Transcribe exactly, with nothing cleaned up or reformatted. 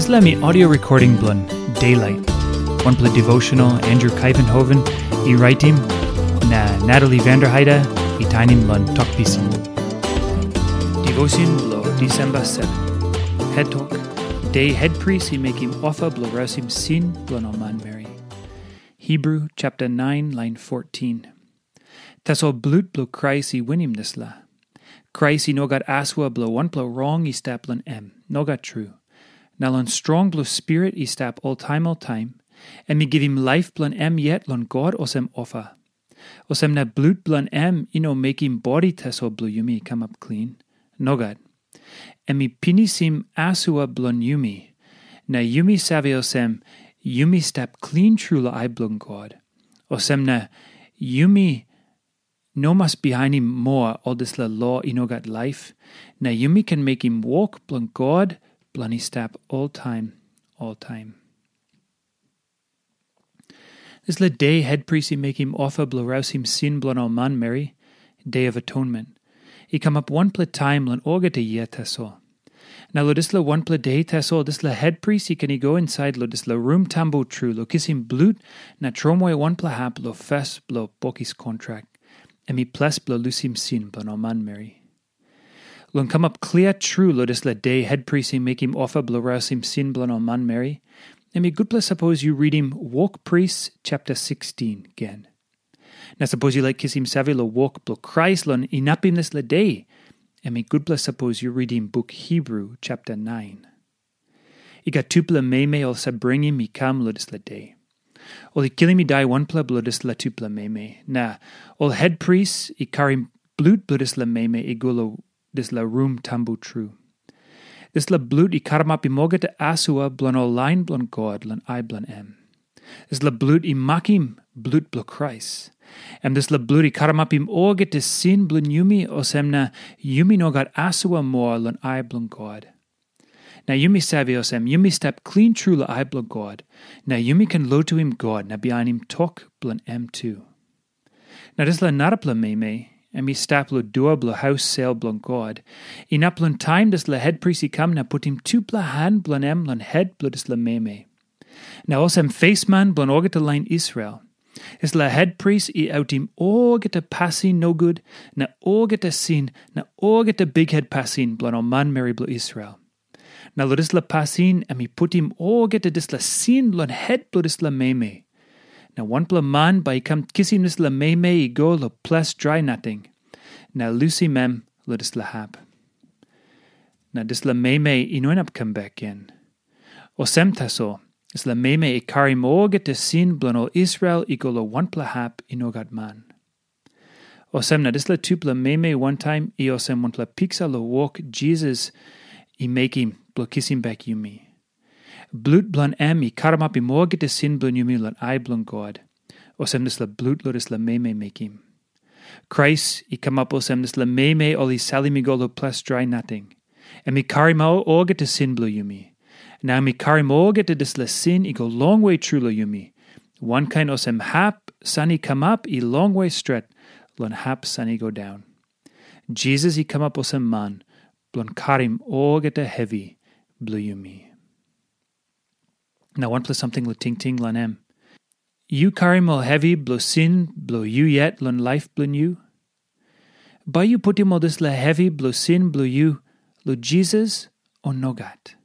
Dispela mi audio recording bilong Daylight. Wanpela devotional Andrew Kuyvenhoven i raitim, na Natalie Vanderheide i tainim long tok pisin. Devotion bilong Disemba seven. Het tok, De het pris i mekim ofa bilong rausim sin bilong ol manmeri. Hebru chapter nine, lain fourteen. Tasol blut bilong Krais i winim dispela. Krais i no gat asua bilong wanpela rong i stap long em. Nogat tru. Na long strong bilong Spirit i stap oltaim oltaim, em i givim laip bilong em yet long God olsem ofa. Olsem na blut bilong em i no mekim bodi tasol bilong yumi i kamap klin. Nogat. Em i pinisim asua bilong yumi. Na yumi save olsem, yumi stap klin tru long ai bilong God. Olsem na yumi no mas bihainim moa ol dispela lo i no gat laip, na yumi ken mekim wok bilong God bilong i stap oltaim, oltaim. Dispela de hetpris i mekim ofa bilong rausim sin bilong ol manmeri, De of Atonement, i kamap wanpela taim long olgeta yia tasol. Na long dispela wanpela de tasol, dispela hetpris i ken i go insait long dispela rum tambu tru long kisim blut na tromoi wanpela hap long fes bilong bokis kontrak, em i ples bilong lusim sin bilong ol manmeri. Long kamap klia tru long dispela de hetpris i mekim ofa bilong rausim sin bilong ol manmeri, em i gutpela sapos yu ritim Wok Pris chapter sixteen gen. Na sapos yu laik kisim save long wok bilong Krais long inapim dispela de, em i gutpela sapos yu ritim buk Hebru chapter nine. I gat tupela meme ol save bringim i kam long dispela de. Ol i kilim i dai wanpela bilong dispela tupela meme, na ol hetpris i karim blut bilong dispela meme i go long dispela rum tambu tru. Dispela blut i karamapim olgeta asua bilong ol lain bilong God long ai bilong em. Dispela blut i makim blut bilong Krais. Em dispela blut i karamapim olgeta sin bilong yumi, olsem na yumi no gat asua moa long ai bilong God. Na yumi save olsem, yumi stap klin tru long ai bilong God, na yumi ken lotuim God na bihainim tok bilong em tu. Na dispela narapela meme, em i stap long dua bilong haus sel bilong God, inap long taim dispela hetpris i kam na putim tupela han bilong em long het bilong dispela meme. Na olsem fesman bilong olgeta lain Israel, dispela hetpris i autim olgeta pasin nogut, na olgeta sin, na olgeta bikhet pasin bilong ol manmeri bilong Israel. Na long dispela pasin em i putim olgeta dispela sin long het bilong dispela meme. Na wanpela man bai i kam kisim dispela meme i go long ples drai nating, na lusim em long dispela hap. Na dispela meme i no inap kam bek gen. Olsem tasol, dispela meme i karim olgeta sin bilong ol Israel i go long wanpela hap i no gat man. Olsem na dispela tupela meme wantaim i olsem wanpela piksa long wok Jisas i mekim bilong kisim bek yumi. Blut bilong em i karamapim olgeta sin bilong yumi long ai bilong God, olsem dispela blut long dispela meme mekim. Krais i kamap olsem dispela meme ol i salim i go long ples drai nating. Em i karim au olgeta sin bilong yumi. Na em i karim olgeta dispela sin i go longwe tru long yumi. Wankain olsem hap san i kamap i longwe stret long hap san i go daun. Jisas i kamap olsem man bilong karim olgeta hevi bilong yumi. Na wanpela samting long tingting long em. Yu karim ol hevi bilong sin bilong yu yet long laip bilong yu? Bai yu putim ol dispela hevi bilong sin bilong yu long Jisas, o nogat?